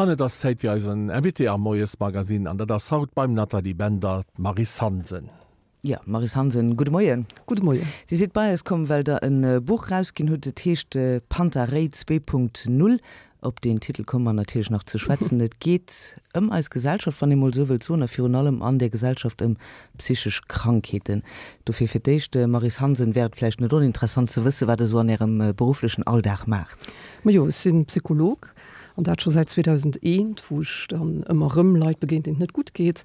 An et ass Zäit fir eisen Invité am Moiesmagazine, an dat ass haut beim Nathalie Bender d'Maryse Hansen. Jo, Maryse Hansen, gudde Moien. Gudde Moien. Dir sidd bei eis komm, well Der e Buch erausginn hutt, et heescht Panta Rhei 2.0. Op deen Titel komme mer natierlech nach ze schwätzen. Et geet ëm eis Gesellschaft, wann ee mol esou wëllt soen, a virun allem an där Gesellschaft ëm psychesch Krankheeten. Dofir fir d'éischt, Maryse Hansen, wär et vläicht net oninteressant ze wëssen, wat Der esou an Ärem berufflechen Alldag maacht? Majo, ech si Psycholog An dat scho säit 2001, wou ech dann ëmmer erëm Leit begéint, deenen et net gutt geet.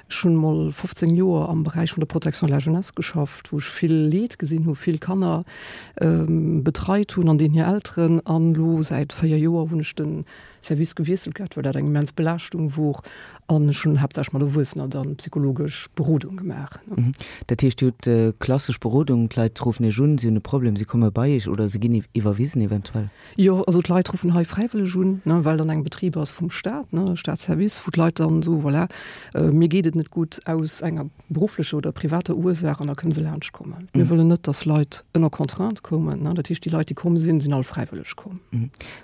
Ech hunn mol 15 Joer am Beräich vun der Protection de la jeunesse geschafft, wou ech vill Leed gesinn hu, vill Kanner betreit hunn an deenen hir Elteren. An elo säit 4 Joer hunn ech de Service gewiesselt gehat, well dat eng immens Belaaschtung wor. An ech hunn haaptsächlech mat Erwuessener dann psychologesch Berodung gemaach. Dat heescht, Dir hutt klassesch Berodung, d'Leit ruffen Iech un, si hunn e Problem, si komme bei Iech oder se ginn iwwerwisen eventuell? Jo, also d'Leit ruffen hei fräiwëlleg un, ne, well dann eng Betrib ass vum Staat, ne, Staatsservice, wou d'Leit dann soen, voilà, mir geet et net gutt aus enger berufflecher oder privater Ursaach an da kënne se laanscht kommen. Mir wëllen net, dass Leit ënner Contrainte kommen, ne, dat heescht déi Leit, déi komm sinn, sinn all fräiwëlleg komm.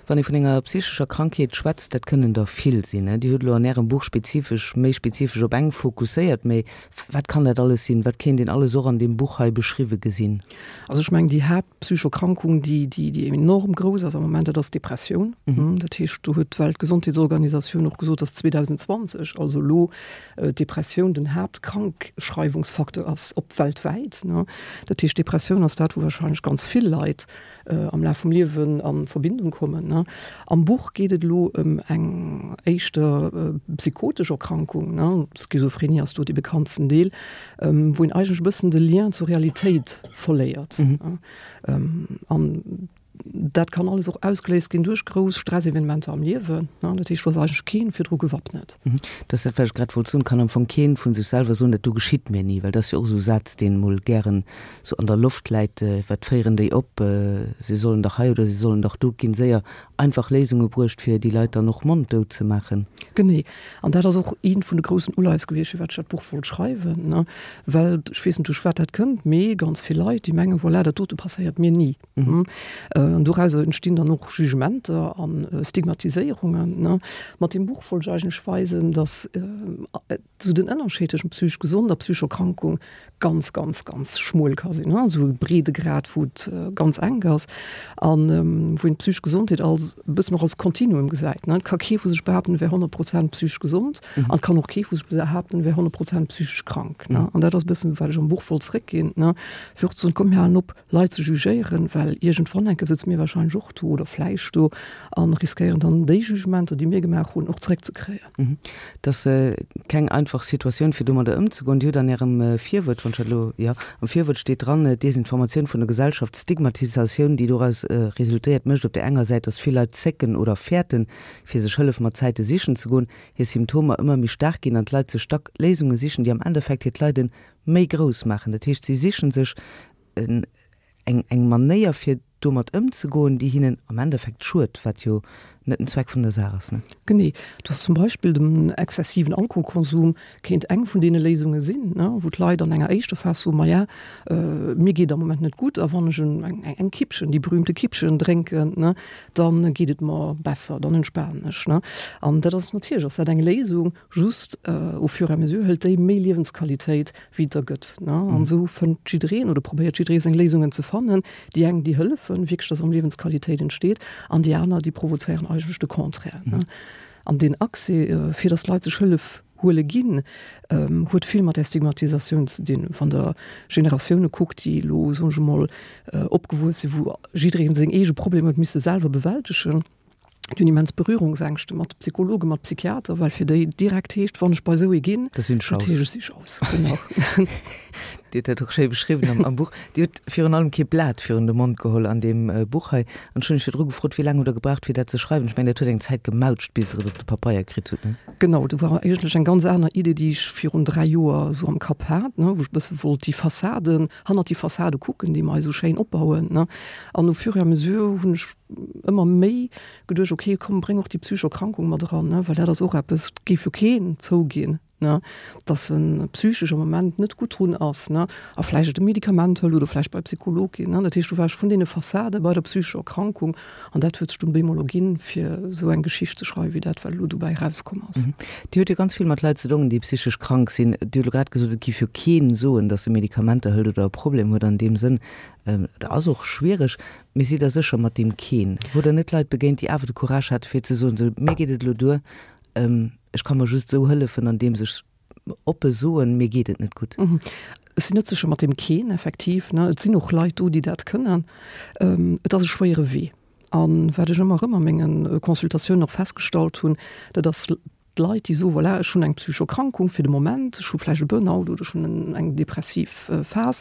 Wann ee vun enger psychescher Krankheet schwätzt, dat kënnen der vill sinn, ne. Dir hutt elo an Ärem Buch spezifesch, méi spezifesch op eng fokusséiert, mä wat kann dat alles sinn? Wat kéint een alles och an deem Buch hei beschriwwe gesinn? Also ech mengen déi Haapt. Psychokrankung, déi, déi, déi enorm grouss ass am Moment, dat ass d'Depressioun. Dat heescht, do huet d'Weltgesondheetsorganisatioun och gesot, dass 2020, also elo, d'Depressioun den Haaptkrankschreiwungsfacteur ass, op weltwäit. Dat heescht, d'Depressioun ass dat, wou wahrscheinlech ganz vill Leit am Laf vum Liewen a Verbindung kommen. Am Buch geet et elo ëm eng éischter psychotesch Erkrankung, Schizophrenie ass do dee bekanntsten Deel, wou een eigentlech e bëssen de Lien zur Realitéit verléiert. An dat kann alles och ausgeléist ginn duerch grouss Stressevenementer am Liewen. Dat heescht, do ass eigentlech keen virdru gewappnet. Dat ass dat, wat ech grad wollt soen. Kann am Fong keen vu sech selwer soen, dat do geschitt mir ni, well dat ass jo och esou e Saz, deen emol gären esou an der Loft läit, Wat féieren déi op? Se sollen dach hei oder se sollen dach do. Et ginn séier einfach Léisunge bruecht, fir déi Leit dann och monddout ze maachen. Genee. An dat ass och eent vun de groussen Uleies gewiescht, firwat ech dat Buch wollt schreiwen, ne, well ech weess net, duerch wat dat kënnt, mee ganz vill Leit, déi mengen, voilà, dat dote passéiert mir ni. An dorauser entstinn dann och Jugementer a Stigmatiséierungen, ne. Mat deem Buch wollt ech eigentlech weisen, datt esou den Ënnerscheed tëschent psychesch gesond a psychescher Erkrankung ganz, ganz, ganz schmuel ka sinn, esou e Breedegrad, wou et ganz enk ass an wou een d'psychesch Gesondheet als e bëssen och als Kontinuum gesäit. Et ka kee vu sech behaapten, e wär 100 Prozent psychesch gesond an et kann och kee vu sech behaapten, e wär 100 Prozent psychesch krank. An dat ass e bëssen, wat ech am Buch wollt zréckginn, fir och ze soen, komm mir halen op, Leit ze jugéieren, well iergendwann enke sëtze mir wahrscheinlech och do oder vläicht do a riskéieren dann déi Jugementer, déi mir gemaach hunn, och zréckzekréien. Et ass keng einfach Situatioun, fir domadder ëmzegoen. Dir hutt an Ärem Virwuert, wann ech dat elo, jo, am Virwuert steet dran, D'Desinformatioun vun der Gesellschaft, d'Stigmatisatioun, déi doraus resultéiert, mécht op där enger Säit, datt vill Leit zécken oder fäerten, fir sech Hëllef mat Zäite sichen ze goen, hir Symptomer ëmmer méi staark ginn an d'Leit sech dack Léisunge sichen, déi am Endeffekt hiert Leiden méi grouss maachen. Dat heescht, si sichen sech eng eng Manéier fir domat ëmzegoen, déi hinnen am Endeffekt schued, wat jo net den Zweck vun der Saach ass, ne? Genee. Du has zum Beispill den exzessiven Alkoholkonsum kéint eng vun deene Léisunge sinn, ne, wou d'Leit an enger éischter Phas soen, Maja, mir geet am Moment net gutt a wann ech eng eng Kippchen, déi berühmte Kippchen drénken, ne, da geet et mer besser, dann entspanen ech, ne. An dat ass natierlech ass dat eng Léisung, Just au fur et à mesure hëlt déi méi Liewensqualitéit, wéi et der gëtt. An esou fënnt jiddereen oder probéiert jidderee seng Léisungen ze fannen. Déi eng, déi hëllefen wierklech, dass erëm Liewensqualitéit entsteet, an déi aner, déi provozéieren eigentlech de Contraire. An deen Accès, fir dass d'Leit sech Hëllef huele ginn, huet vill mat där Stigmatisatioun ze dinn. Wann Der Generatioune kuckt, déi elo, soen ech emol, opgewuess sinn, wou jidderee seng eege Problemer huet misse selwer bewältegen, Déi hunn immens Berührungsängschte mat Psychologen, mat Psychiater, well fir déi direkt heescht, wann ech bei esou ee ginn, Da sinn ech dat raus. heescht, ech si raus. Genau. Dir hutt dat och schéi beschriwwen am, am Buch. Dir hutt virun allem kee Blat virun de Mond geholl an deem Buch hei. An ech hunn lech virdru gefrot, wéi laang hutt Der gebraucht, fir dat ze schreiwen? Ech mengen, dat huet eng Zäit gemautscht, bis Der et op de Papeier kritt hutt, ne? Genau, do war eigentlech eng ganz aner Idee, déi ech virun 3 Joer esou am Kapp hat, ne, wou ech e bësse wollt déi Fassaden, hannert déi Fassade kucken, déi mer hei esou schéin opbauen, ne. An au fur et à mesure hunn ech ëmmer méi geduecht, ok, komm, bréng och déi psychesch Erkrankung mat eran, ne, well dat ass och eppes, dat géif jo keen zouginn. ne, dass e psychesch am Moment net gutt drun ass, ne, a vläicht e Medikament hëlt oder vläicht bei e Psycholog geet, ne. Dat heescht, du war ech vun deene Fassade bei der psychescher Erkrankung an dat huet sech dunn bemol erginn, fir esou eng Geschicht ze schreiwen, wéi dat, wat elo dobäi erauskomm ass. Dir hutt jo ganz vill mat Leit ze dongen, déi psychesch krank sinn. Dir hutt elo grad gesot, et géif jo keen soen, dass e Medikamenter hëlt oder e Problem huet an deem Sënn. Dat ass och schwiereg. Mee sidd Der sécher mat deem keen? Hutt Der net Leit begéint, déi awer de Courage hate fir ze soen, sou mir geet et elo duer, ech ka mer just esou hëllefen, andeems ech oppe soen, mir geet et net gutt? Ech sinn net sécher mat deem keen, effektiv. Et sinn och Leit do, déi dat kënnen. Et ass e schwéiere Wee. A wat ech ëmmer erëm a menge Consultatiounen och festgestallt hunn, dat ass, D'Leit, déi soen, voilà, ech hunn eng psychesch Erkrankung fir de Moment, ech hu vläicht e Burnout oder ech hunn eng depressiv Phas,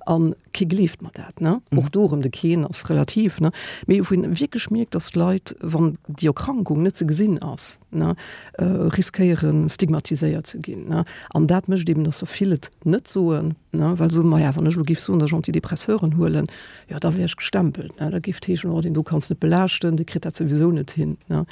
a kee gleeft mer dat, ne? Och do erëm, de keen ass relativ, ne? Mee wou een wierklech mierkt, dass d'Leit, wann déi Erkrankung net ze gesinn ass, ne, riskéieren, stigmatiséiert ze ginn, ne? An dat mécht eben, dass der vill et net soen, ne, well se soen, maja, wann ech elo géif soen, dass ech Antidepresseuren huelen, jo, da wär ech gestempelt, ne? Da géif et heeschen, oh, deen do kanns net belaaschten, dee kritt dat souwisou net hin, ne?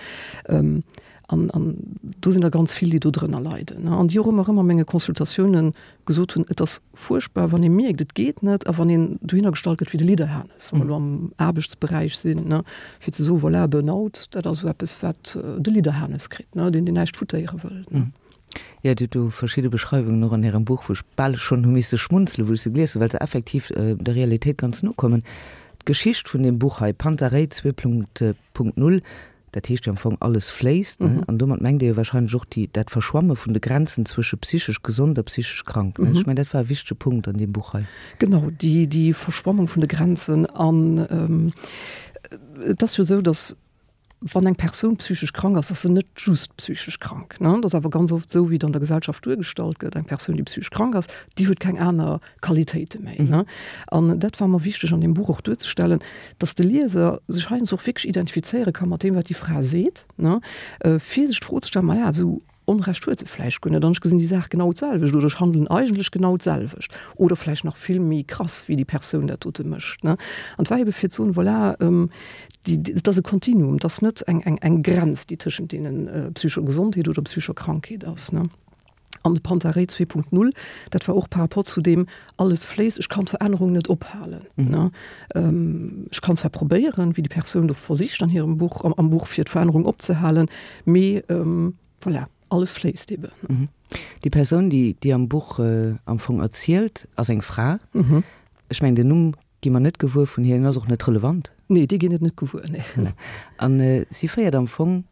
An, an do sinn der ganz vill, déi do drënner leiden, an déi och ëmmer erëm a menge Consultatiounen gesot hunn, et ass fuerchtbar, wann ee mierkt, et geet net, a wann een dohinner gestallt gëtt wéi de Lidderhanes, wa mer elo am Aarbechtsberäich sinn, ne, fir ze soen, voilà, Burnout, dat ass esou eppes, wat de Lidderhanes kritt, ne, deen, deen näischt futtéiere wëll, ne. Jo, Dir hutt do verschidde Beschreiwungen och an Ärem Buch, wou ech bal schonn hu misse schmunzelen, wou ech se gelies hunn, well se effektiv der Realitéit ganz no kommen. D'Geschicht vun deem Buch hei, Panta Rhei 2.0, Dat heescht jo am Fong, alles fléisst, ne? An domat mengt Dir jo wahrscheinlech och déi, dat Verschwamme vun de Grenzen zwësche psychesch gesond a psychesch krank, ne? Ech mengen, dat war e wichtege Punkt an deem Buch hei. Genau, déi, déi Verschwammung vun de Grenzen. An et ass jo esou, datt wann eng Persoun psychesch krank ass, ass se net just psychesch krank, ne? Et ass awer ganz oft esou, wéi et an der Gesellschaft duergestallt gëtt, eng Persoun, déi psychesch krank ass, déi huet keng aner Qualitéite méi. Ne? An dat war mer wichteg an deem Buch och duerzestellen, dass de Lieser sech heiansdo och wierklech identifizéiere ka mat deem, wat déi Fra seet, ne? Fir sech d'Fro ze stellen, Maja, esou Onrecht huet se vläicht guer net an ech gesinn déi Saach genau d'selwecht oder ech handelen eigentlech genau d'selwecht oder vläicht nach vill méi krass, wéi déi Persoun dat dote mécht. Ne? An et war ebe fir ze soen, voilà, déi, et ass e Kontinuum, et ass net eng, eng, eng Grenz, déi tëschent deenen psychescher Gesondheet oder psychescher Krankheet ass. Ne? An de Panta Rhei 2.0, dat war och par rapport zu deem, alles fléisst, ech kann d'Verännerung net ophalen. Ne? Ech kann zwar probéieren, wéi déi Persoun och versicht an hirem Buch, am Buch, fir d'Verännerung opzehalen, mee voilà, alles fléisst eben. Déi Persoun, déi déi am Buch am Fong erzielt, ass eng Fra. Ech mengen, den Numm gi mer net gewuer vun hir, en ass och net relevant. Nee, dee ginn et net gewuer, nee. Voilà. An si féiert am Fong,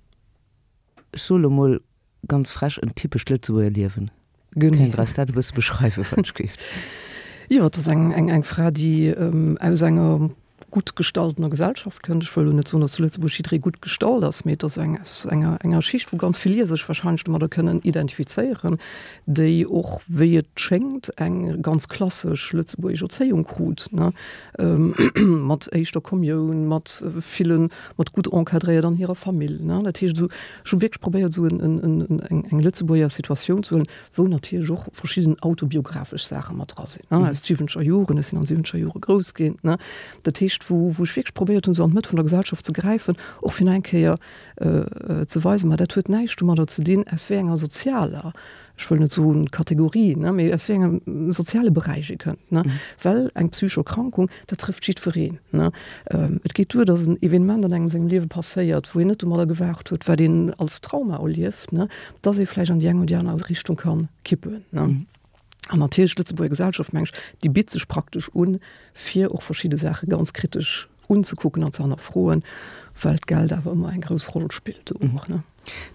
ech soe lo mol, Ganz frech, en typescht Lëtzebuerger Liewen. Genee. Kéint Der eis dat e bësse beschreiwen, wann ech géif? Jo, et ass eng, eng, eng Fra, déi aus enger gutt gestaltener Gesellschaft kënnt. Ech wëll elo net soen, datt zu Lëtzebuerg jidderee gutt gestallt ass, mee et ass eng aus enger, enger Schicht, wou ganz vill Lieser sech wahrscheinlech domadder kënnen identifizéieren, déi och, wéi et schéngt, eng ganz klassesch lëtzebuergesch Erzéiung krut, ne, mat éischter Kommioun, mat villen, mat gutt encadréiert an hirer Famill, ne. Dat heescht esou, Ech hu wierklech probéiert, esou eng Lëtzebuerger Situatioun ze huelen, wou natierlech och verschidden autobiographesch Saache mat dra sinn, aus siwwenzeger Joren. Ech sinn an siwwenzeger Jore grouss ginn. Dat heescht, wou ech wierklech probéiert hunn, esou an d'Mëtt vun der Gesellschaft ze gräifen, och fir nach eng Kéier ze weisen, ma dat huet näischt domadder ze dinn, aus wéi enger sozialer ech wëll net soen Kategorie, ne, mee aus wéi engem soziale Beräich ee kënnt, ne, well eng psychesch Erkrankung, dat trëfft jiddwereen, ne. Et geet duer, datt en Evenement an engem sengem Liewe passéiert, wou een net domadder gewaart huet, wat een als Trauma erlieft, ne, datt ee vläicht an déi eng oder déi aner Richtung ka kippen, ne. An natierlech, d'Lëtzebuerger Gesellschaft, meng ech, déi bitt sech praktesch un, fir och verschidde Saache ganz kritesch unzekucken an ze hannerfroen, well d'Geld awer ëmmer eng grouss Roll spillt do och, ne.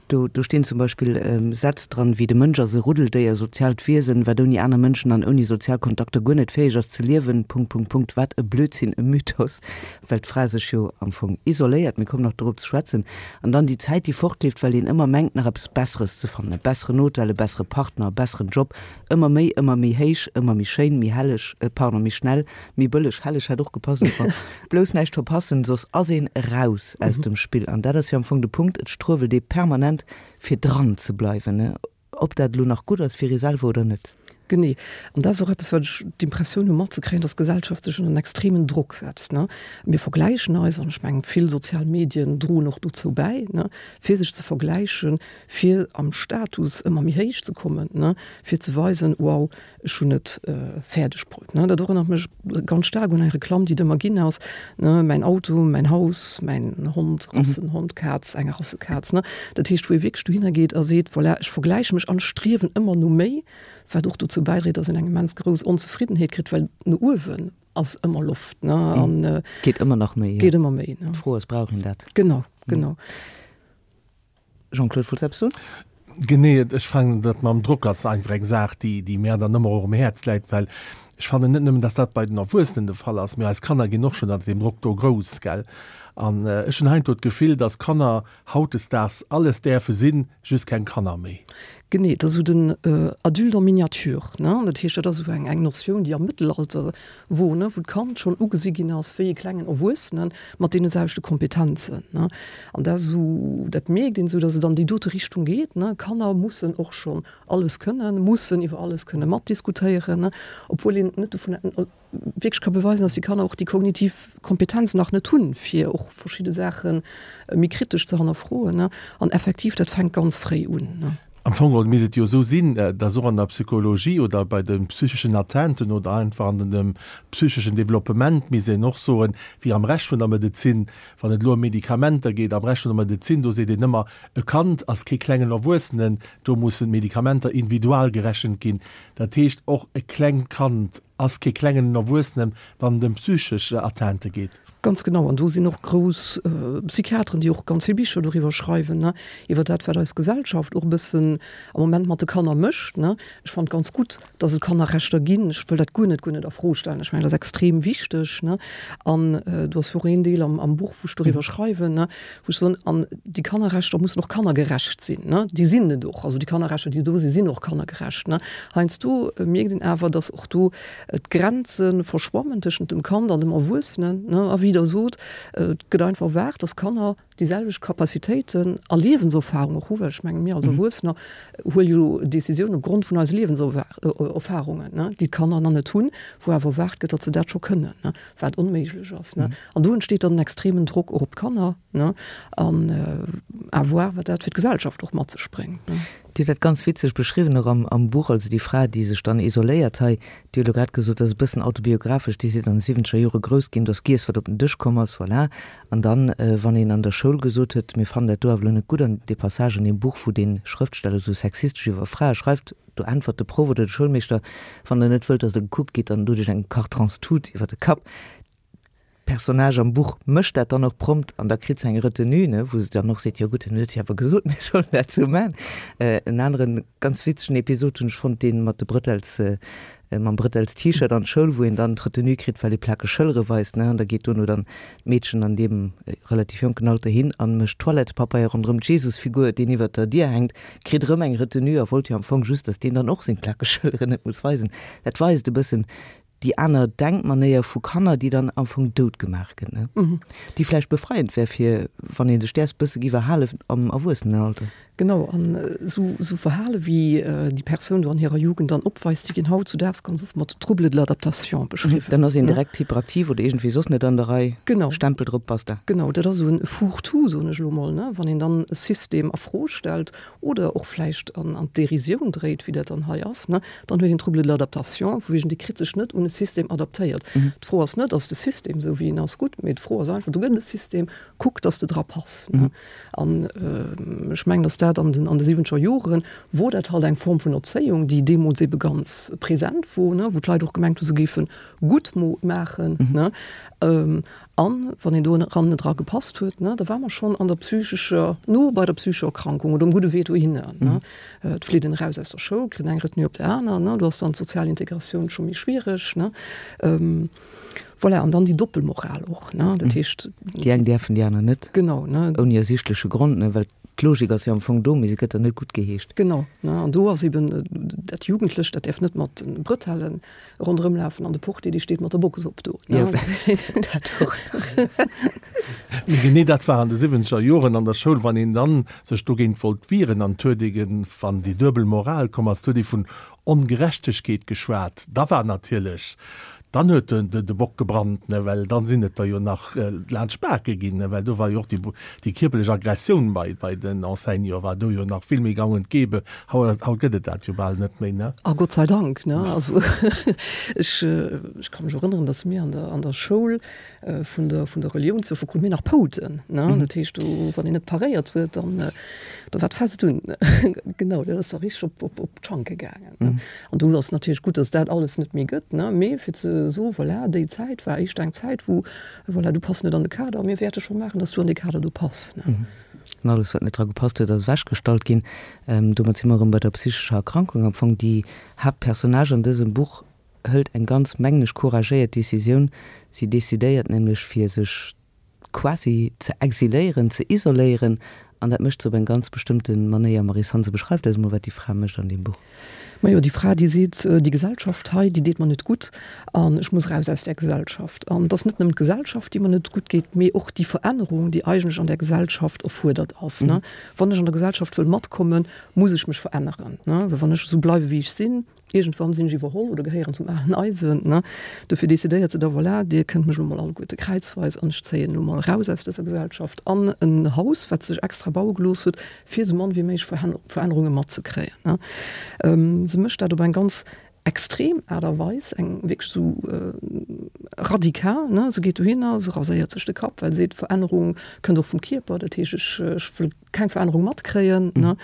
Do, do stinn zum Beispill Sätz dran wéi, De Mënsch ass e Ruddeldéier, soziaalt Wiesen, wat ouni aner Mënschen an ouni sozial Kontakter guer net fäeg ass ze liewen. Punkt, Punkt, Punkt. Wat e Blödsinn, e Mythos, well d'Fra sech jo am Fong isoléiert. Mir kommen nach dorop ze schwätzen. An dann déi Zäit, déi fortleeft, well een ëmmer mengt, nach eppes Besseres ze fannen, e besseren Hotel, e bessere Partner, e besseren Job, ëmmer méi, ëmmer méi héich, ëmmer méi schéin, méi helleg, pardon, méi schnell, Méi bëlleg, helleg hätt och gepasst am Fong. Blouss näischt verpassen, soss ass een eraus aus dem Spill. An dat ass jo am Fong de Punkt, et struewelt ee permanent fir dran ze bleiwen, ob dat elo nach gutt ass fir ee selwer oder net. Genee. An dat ass och eppes, wat ech d'Impressioun hu matzekréien, dass d'Gesellschaft sech ënner en extremen Drock setzt, ne. Mir vergläichen eis, an ech mengen, vill sozial Medien droen och dozou bäi, ne, fir sech ze vergläichen, fir am Status ëmmer méi héich ze kommen, ne, fir ze weisen, wow, ech hunn et fäerdeg bruet, ne. Dat erënnert mech ganz staark un eng Reklamm, déi et ëmmer ginn ass, ne, mäin Auto, mäin Haus, mäin Hond, Rassenhond, Kaz, eng Rassekaz, ne. Dat heescht, wou ee wierklech dohinner geet a seet, voilà, ech vergläiche mech an striewen ëmmer no méi, wat och dozou bäidréit, dass een eng immens grouss Onzefriddenheet kritt, well no uewen ass ëmmer Loft, ne, an. Geet ëmmer nach méi, jo. Geet ëmmer méi, ne. D'Fro ass, brauch een dat? Genau, genau. Jean-Claude, wollts eppes soen? Genee, ech fannen dat mam Drock ass einfach eng Saach, déi, déi mär dann ëmmer och um Häerz läit, well ech fannen net nëmmen, dass dat bei den Erwuessenen de Fall ass, mee eis Kanner ginn och schonn ënner deem Drock do grouss, gell. An ech hunn heiansdo d'Gefill, dass Kanner hautdesdaags alles däerfe sinn, just keng Kanner méi. Genee, et ass esou den Adulte en miniature, ne. Dat heescht, dat ass esou eng, eng Notioun, déi am Mëttelalter wor, ne, wou d'Kand schonn ugesi ginn ass wéi e klengen Erwuessene mat deene selwechte Kompetenzen, ne. An dat ass esou, dat mierkt een esou, datt et an déi dote Richtung geet, ne. Kanner mussen och schonn alles kënnen, mussen iwwer alles kënne matdiskutéieren, ne, obwuel een net dovun wierklech ka beweisen, datt déi Kanner och déi kognitiv Kompetenz nach net hunn, fir och verschidde Saache méi kritesch ze hannerfroen, ne. An effektiv, dat fänkt ganz fréi un, ne. Am Fong geholl misst et jo esou sinn, dass och an der Psychologie oder bei de psycheschen Atteinten oder einfach an dem psycheschen Développement misst een och soen, wéi am Rescht vun der Medezin, wann et elo ëm Medikamenter geet, am Rescht vun der Medezin, do seet een ëmmer, e Kand ass kee klengen Erwuessenen, do mussen d'Medikamenter individual gerechent ginn. Dat heescht, och e klengt Kand ass kee klengen Erwuessenen, wann et ëm psychesch Atteinte geet. Ganz genau, an do sinn och grouss Psychiateren, déi och ganz vill Bicher doriwwer schreiwen, ne, iwwer dat, wat eis Gesellschaft och e bëssen am Moment mat de Kanner mécht, ne. Ech fannen et ganz gutt, datt et Kannerrechter ginn. Ech wëll dat guer net, guer net a Fro stellen. Ech mengen, dat ass extrem wichteg, ne. An do ass jo och een Deel am, am Buch, wou ech doriwwer schreiwen, ne, wou ech soen, an déi Kannerrechter mussen och kannergerecht sinn, ne. Déi sinn et och. Also déi Kannerrechter, déi do sinn, sinn och kannergerecht, ne. Heiansdo mierkt een awer, datt och do D'Grenze verschwammen tëschent dem Kand an dem Erwuessenen, ne? A wéi Der sot, et gëtt einfach erwaart, dass Kanner déi selwecht Capacitéiten a Liewenserfahrung och hu, well ech mengen, mir als Erwuessener huele jo Décisionen op Grond vun eise Liewenserfahrungen, ne, déi d'Kanner nach net hunn, wou awer erwaart gëtt, datt se dat scho kënnen, ne, wat onméiglech ass, ne. An do entsteet dann en extremen Drock och op d'Kanner, ne, an à voir, wat dat fir d'Gesellschaft och mat sech bréngt, ne. Dir hutt dat ganz witzeg beschriwwen och am Buch, also déi Fra, déi sech dann isoléiert hei, Dir hutt elo grad gesot, dat ass e bëssen autobiographesch, Dir sidd an de siwwenzeger Jore grouss ginn, do ass giess, wat op den Dësch komm ass, voilà. An dann, wann een an der Schoul gesot huet, mir fannen dat do awer elo net gutt, an dee Passage an deem Buch, wou dee Schrëftsteller esou sexistesch iwwer Frae schreift, do äntwert de Proff oder de Schoulmeeschter, wann Der net wëllt, datt Der gekuckt gitt, dann dot Iech eng Kartronstut iwwer de Kapp. D'Personnage am Buch mécht dat dann och prompt an da kritt se eng Retenue, ne, wou se dann och seet, jo gutt, en huet jo awer gesot, mir sollen dat esou maachen. En aneren ganz witzegen Episod hunn ech fonnt, dee mat de Brëtels, mam Brëtels-T-Shirt an d'Schoul, wou een dann d'Retenue kritt, well ee plakeg Schëllere weist, ne, an da geet dono dann d'Meedchen an deem relativ jonken Alter hin a mécht Toilettepapeier ronderëm d'Jesusfigur, deen iwwert der Dier hänkt, kritt erëm eng Retenue a wollt jo am Fong just, datt deen dann och seng plakeg Schëlleren net muss weisen. Dat weist e bëssen, déi aner Denkmanéier vu Kanner, déi dann am Fong dout gemaach gëtt, ne? Déi vläicht befreiend wär fir wann ee sech däers bësse giff erhalen am Erwuessenenalter. Genau, an esou esou Verhale wéi déi Persoun do an hirer Jugend dann opweist, déi ginn hautzudaags ganz oft mat Troubles de l'adaptation beschriwwen. Dann ass een direkt hyperaktiv oder iergendwéi soss net an der Rei. Genau. Stempel drop, basta. Genau, dat ass esou e Fourre-tout, soen ech elo mol, ne, wann een dann e System a Fro stellt oder och vläicht an d'Dérisioun dréit, wéi dat dann hei ass, ne, dann huet een Trouble de l'adaptation, vu wegen dee kritt sech net un e System adaptéiert. D'Fro ass net, ass de System esou wéi en ass gutt, mee d'Fro ass einfach, do gëtt et e System, kuck, dass de dra pass. Ne. An ech mengen, dass dat an den an de siwwenzeger Joren wor dat halt eng Form vun Erzéiung, déi deemools ebe ganz present wor, ne, wou d'Leit och gemengt hu se géife gutt maachen, ne. An wann een do eran net dra gepasst huet, ne, da war mer schonn an der psychescher, no bei der psychescher Erkrankung oder um gudde Wee dohinner, ne. Et flitt een eraus aus der Schoul, kritt eng Retenue op der aner, ne, do ass dann d'sozial Integratioun scho méi schwiereg, ne. Voilà, an dann déi Doppelmoral och, ne, dat heescht. Déi eng däerfen, déi aner net. Genau, ne. Ouni ersichtleche Grond, ne, well. D'Logik ass jo am Fong do, mee se gëtt dann net guttgeheescht. Genau, ne, an do ass eben dat Jugendlecht, dat däerf net mat de Brëtellen ronderëm lafen an de Portier, dee steet mat der Box op do, ne. Jo, dat och nach. Mee genee dat war an de siwwenzeger Joren an der Schoul, wann een dann sech dogéint wollt wieren an et huet ee, wann déi duebel Moral komm ass, et huet ee vun Ongerechtegkeet geschwat, da war natierlech, dann huet de Bock gebrannt, ne, well dann sinn et der jo nach laanscht d'Bake ginn, ne, well do war jo och déi, déi kierperlech Aggressioun bei, bei den Enseignanten war do jo nach vill méi gang und gäbe. Haut, haut gëtt et dat jo bal net méi, ne. A Gott sei Dank, ne. Also ech, ech ka mech erënneren, datt mir an der, an der Schoul vun der, vun der Relioun zu krute mir nach Pouten, ne. Dat heescht, do, wann een net paréiert huet, dann, da war d'Fest un. Genau, dat ass da richteg op, op, op d'Schanke gaangen, ne. An do ass natierlech gutt, datt dat alles net méi gëtt, ne, mee fir ze soen, voilà, déi Zäit war éischter eng Zäit, wou, voilà, du pass net an de Kader, mir wäerte scho maachen, datt du an dee Kader do pass, ne. An alles, wat net dra gepasst huet, ass ewechgestallt ginn. Domat si mer erëm bei der psychescher Erkrankung. Am Fong déi Haaptpersonnage an dësem Buch hëlt eng ganz, mengen ech, couragéiert Decisioun. Si decidéiert nämlech, fir sech quasi ze exiléieren, ze isoléieren, an dat mécht se op eng ganz bestëmmte Manéier. Maryse Hansen, beschreift eis emol, wat déi Fra mécht an deem Buch. Majo, déi Fra, déi seet, déi Gesellschaft hei, déi deet mer net gutt an ech muss eraus aus där Gesellschaft. An et ass net nëmmen d'Gesellschaft, déi mer net gutt geet, mee och déi Verännerung, déi eigentlech an där Gesellschaft erfuerdert ass. Wann ech an der Gesellschaft wëll matkommen, muss ech mech veränneren, well wann ech esou bleiwe wéi ech sinn, Iergendwann sinn ech iwwerholl oder gehéieren zum alen Eisen, ne? Dofir decidéiert se da, voilà, dir kënnt mech elo mol alleguerte kräizweis an ech zéien elo mol eraus aus dëser Gesellschaft an en Haus, wat se sech extra baue gelooss huet, fir esou mann wéi méiglech Verännerunge matzekréien, ne? Se mécht dat op eng ganz extrem Aart a Weis, eng wierklech esou radikal, ne? Se geet dohinner, se raséiert sech de Kapp, well se seet, Verännerung kënnt och vum Kierper, dat heescht, ech, ech wëll keng Verännerung matkréien. Ne?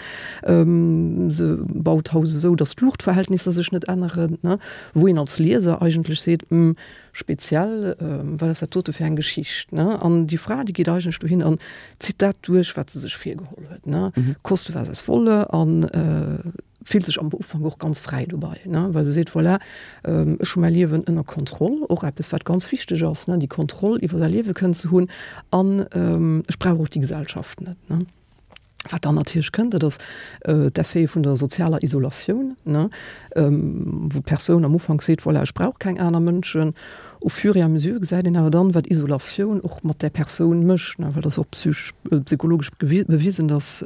Ähm, se baut d'Haus esou, datt d'Luuchtverhältnisser sech net änneren, ne? Wou een als Lieser eigentlech seet, Hm, speziell, ähm, wat ass dat dote fir eng Geschicht? Ne? An déi Fra, déi geet eigentlech dohin an zitt dat duerch, wat se sech virgeholl huet, ne? Koste was es wolle an äh, fillt sech am Ufank och ganz fräi dobei, ne, well se seet, voilà, ech hu mäi Liewen ënner Kontroll, och eppes wat ganz wichteg ass, ne, déi Kontroll iwwer säi Liewe kënnen ze hunn an ech brauch och déi Gesellschaft net, ne. Wat dann natierlech kënnt, dat ass d'Effete vun der sozialer Isolatioun, ne, wou d'Persoun am Ufank seet, voilà, ech brauch keng aner Mënschen. Au fur et à mesure gesäit een awer dann, wat Isolatioun och mat där Persoun mécht, ne, well dat ass och psychesch, psychologesch bewisen, dass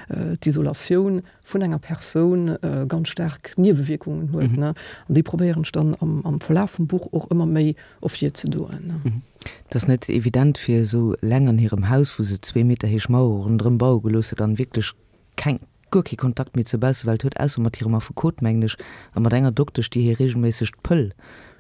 d'Isolatioun vun enger Persoun ganz staark Niewewierkungen huet. An déi probéieren ech dann am Verlaf vum Buch och ëmmer méi ervirzedoen. Et ass net evident fir esou eleng an hirem Haus, wou se zwee Meter héich Mauere ronderëm baue gelooss huet an wierklech keng, guer kee Kontakt méi zur Baussewelt huet, ausser mat hirem Affekot, mengen ech, a mat enger Doktesch, déi hir reegelméisseg d'Pëll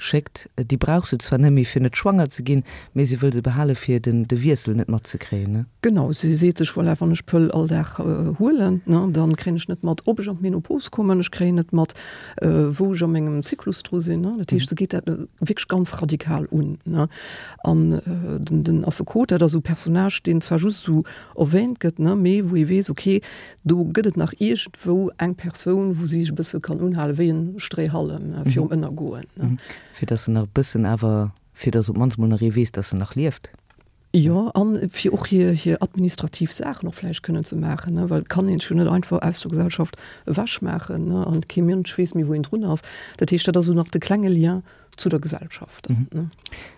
schéckt. Déi brauch se zwar net méi fir net schwanger ze ginn, mee se wëll se behale fir den de Wiessel net matzekréien, ne? Genau, si seet sech, voilà, wann ech d'Pëll all Dag huelen, ne, dann kréien ech net mat, ob ech an d'Menopause kommen, ech kréien net mat, wou ech a mengem Zyklus dru sinn, ne. Dat heescht, se geet dat wierklech ganz radikal un, ne. An den den Affekot, dat ass esou e Personnage, deen zwar just esou erwähnt gëtt, ne, mee wou ee weess, okay, Do gëtt et nach iergendwou eng Persoun, wou si sech e bësse kann unhalen, wéi en Stréihallem virum Ënnergoen. Fir datt se nach e bëssen awer, fir datt op d'mannst mol nach ee weess, datt se nach lieft. Jo, a fir och hir, hir administrativ Saachen och vläicht kënnen ze maachen, ne, well et kann een sech jo net einfach aus der Gesellschaft ewechmaachen, ne, an kee Mënsch weess méi, wou een drun ass. Dat heescht, dat ass esou nach de klenge Lien zu der Gesellschaft.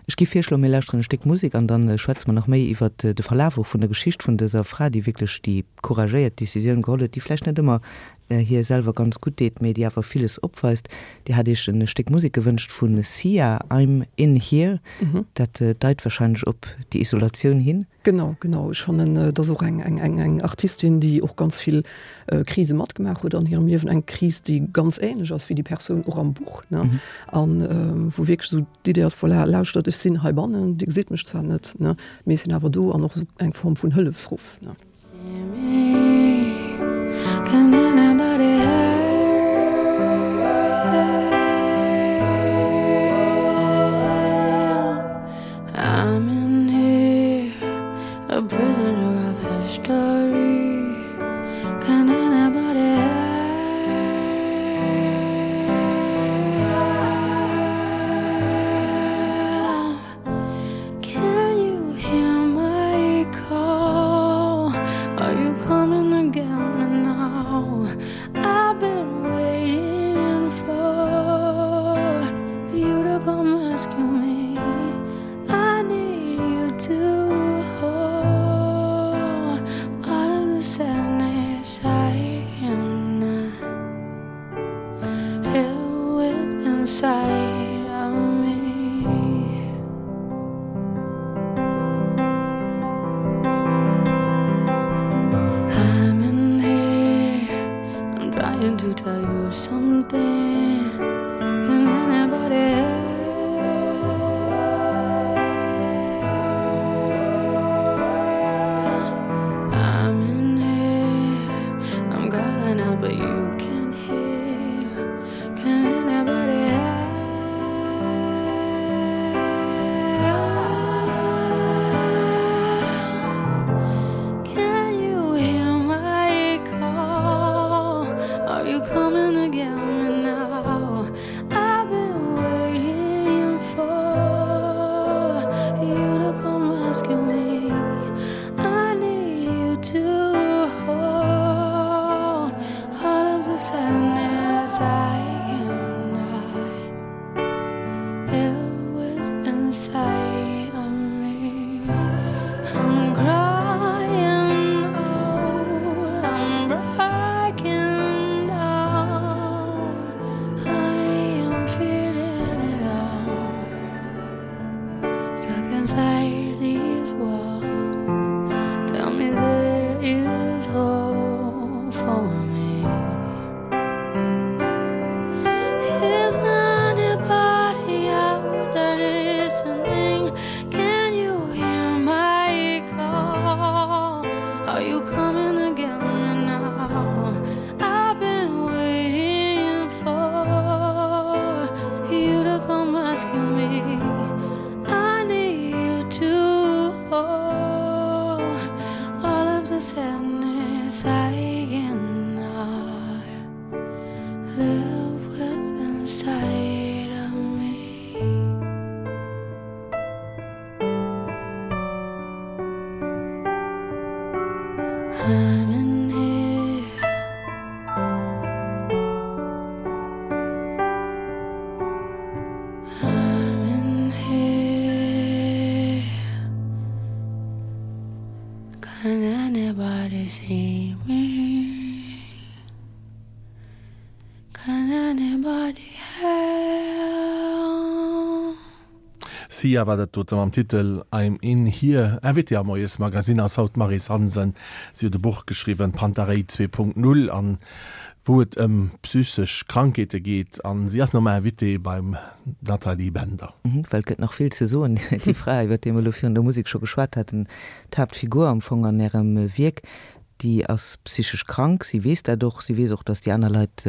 Ech gi virschloen, mir lauschteren e Stéck Musek an dann schwätze mer nach méi iwwert de Verlaf och vun der Geschicht vun dëser Fra, déi wierklech déi couragéiert Decisioun geholl huet, déi vläicht net ëmmer hir selwer ganz gutt deet, mee déi awer villes opweist. Dir hat Iech e Stéck Musek gewënscht vu Sia, I'm In Here. Dat deit wahrscheinlech op déi Isolatioun hin. Genau, genau. Ech fannen, et ass och eng, eng, eng, eng Artistin, déi och ganz vill Krise matgemaach huet an hirem Liewen. Eng Kris, déi ganz ähnlech ass wéi déi Persoun och am Buch, ne? An wou wierklech esou d'Idee ass, voilà, lauschtert, ech sinn heibannen, Dir gesitt mech zwar net, ne, mee ech sinn awer do an och esou eng Form vun Hëllefsruff, ne? Can you hear my call? Are you coming? sadness I cannot live with inside of me. I'm in here. I'm in here. Can anybody see me? Can anybody help? Sia war dat dote mam Titel I'm in here. Invitée am Moiesmagazin ass haut d'Maryse Hansen. Si huet e Buch geschriwwen, Panta Rhei 2.0, an wou et ëm psychesch Krankheete geet. An si ass normal Invitée beim Nathalie Bender. Well et gëtt nach vill ze soen. Déi Fra, iwwer déi mer elo virun der Musek scho geschwat haten, d'Haaptfigur am Fong an Ärem Wierk, déi ass psychesch krank. Si weess dat och. Si weess och, datt déi aner Leit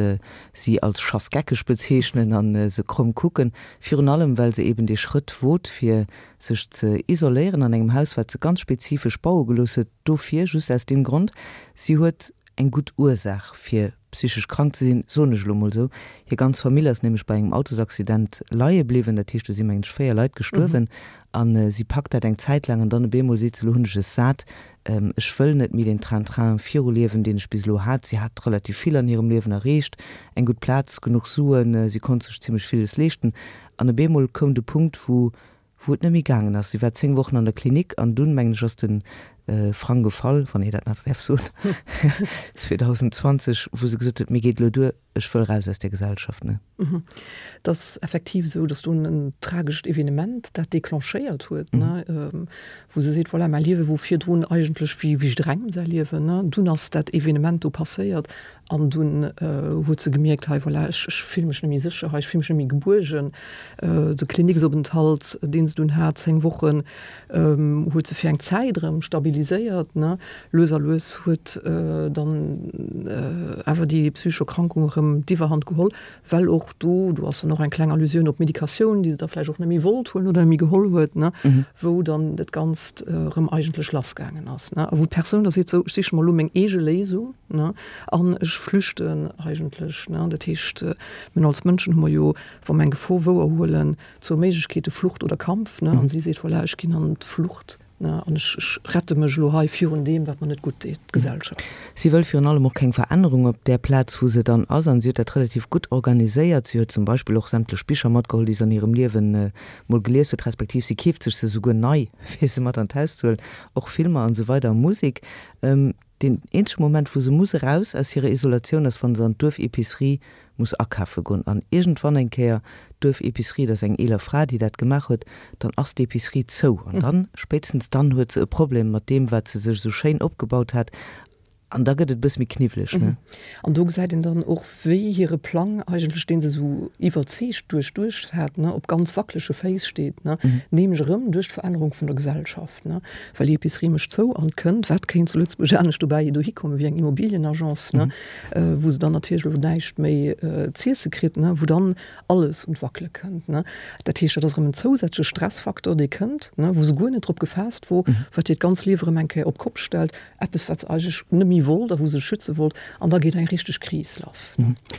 si als schassgeckeg bezeechnen a se kromm kucken. Virun allem, well se eben dee Schrëtt wot, fir sech ze isoléieren an engem Haus, wat se ganz spezifesch baue gelooss huet dofir, just aus deem Grond. Si huet eng gutt Ursaach fir psychesch krank ze sinn, soen ech elo mol esou. Hir ganz Famill ass nämlech bei engem Autosaccident leie bliwwen, dat heescht do si mengen ech 4 Leit gestuerwen a si packt dat eng Zäit laang an dann op eemol seet se, elo hunn ech es sat, ech wëll net méi deen Train-train viruliewen, deen ech bis elo hat. Si hat relativ vill an hirem Liewen erreecht, eng gutt Plaz, genuch Suen, si konnt sech zimmlech villes leeschten an op eemol koum de Punkt wou wou et net méi gaangen ass. Si war 10 Wochen an der Klinik an dunn, mengen ech, ass de Frang gefall, wann ee dat nach däerf soen, 2020, wou se gesot huet, mir geet elo duer, ech wëll raus aus där Gesellschaft. Ne? Et ass effektiv esou, datt dunn en tragescht Evenement dat declenchéiert huet, ne, wou se seet, voilà, mäi Liewe wor virdrun eigentlech wéi jidderengem säi Liewen, ne, dunn ass dat Evenement do passéiert An dunn huet se gemierkt, hei voilà, ech ech fille mech net méi sécher hei, ech fille mech net méi gebuergen. De Kliniksopenthalt, deen se dunn hat, 10 Wochen, huet se fir eng Zäit erëm stabiliséiert, ne. Lues a lues huet dann awer déi psychesch Erkrankung erëm d'Iwwerhand geholl, well och do, do ass dann och eng kleng Allusioun op d'Medikatioun, déi se da vläicht och net méi wollt huelen oder net méi geholl huet, ne, wou dann dat Ganzt erëm eigentlech lassgaangen ass, ne, a wou d'Persoun da seet, sou, ech siche mer elo meng eege Léisung, ne, an ech flüchten eigentlech, ne. Dat heescht, mir hunn als Mënschen hu mer jo, wa mer eng Gefor wouerhuelen, zwou Méiglechkeete, Flucht oder Kampf, ne, an si seet, voilà, ech ginn an d'Flucht. An ech rette mech elo hei virun deem, wat mer net gutt deet, d'Gesellschaft. Si wëll virun allem och keng Verännerung op där Plaz, wou se dann ass. An si huet dat relativ gutt organiséiert. Si huet zum Beispill och sämtlech Bicher matgeholl, déi se an hirem Liewen mol gelies huet, respektiv si keeft sech se souguer nei, fir se mat an d'Haus ze huelen, och Filmer an esou weider a Musek. Deen eenzege Moment, wou se muss eraus aus hirer Isolatioun, ass, wa se an d'Duerf-Epicerie muss akafe goen. An iergendwann eng Kéier, d'Duerf-Epicerie, dat ass eng eeler Fra, déi dat gemaach huet, dann ass d'Epicerie zou. An dann, spéitstens dann huet se e Problem mat deem, wat se sech esou schéin opgebaut hat. An da gëtt et e bësse méi kniwweleg, ne? An do gesäit een dann och, wéi hire Plang eigentlech, dee se esou iwwerzeegt duerchduecht hat, ne, op ganz wackelege Féiss steet, ne, nämlech erëm duerch d'Verännerung vun der Gesellschaft, ne, well déi Epicerie mécht zou an et kënnt, wat kéint zu Lëtzebuerg anescht dobäi dohi kommen wéi eng Immobilienagence, ne, wou se dann natierlech elo näischt méi z'iesse kritt, ne, wou dann alles un d'Wackele kënnt, ne. Dat heescht, dat ass erëm en zousätzleche Stressfaktor, dee kënnt, ne, wou se guer net drop gefaasst wor, wat hiert ganz Liewe erëm eng Kéier op d'Kopp stellt. Eppes, wat se eigentlech net méi wollt a wou se sech schütze wollt. An da geet eng richteg Kris lass.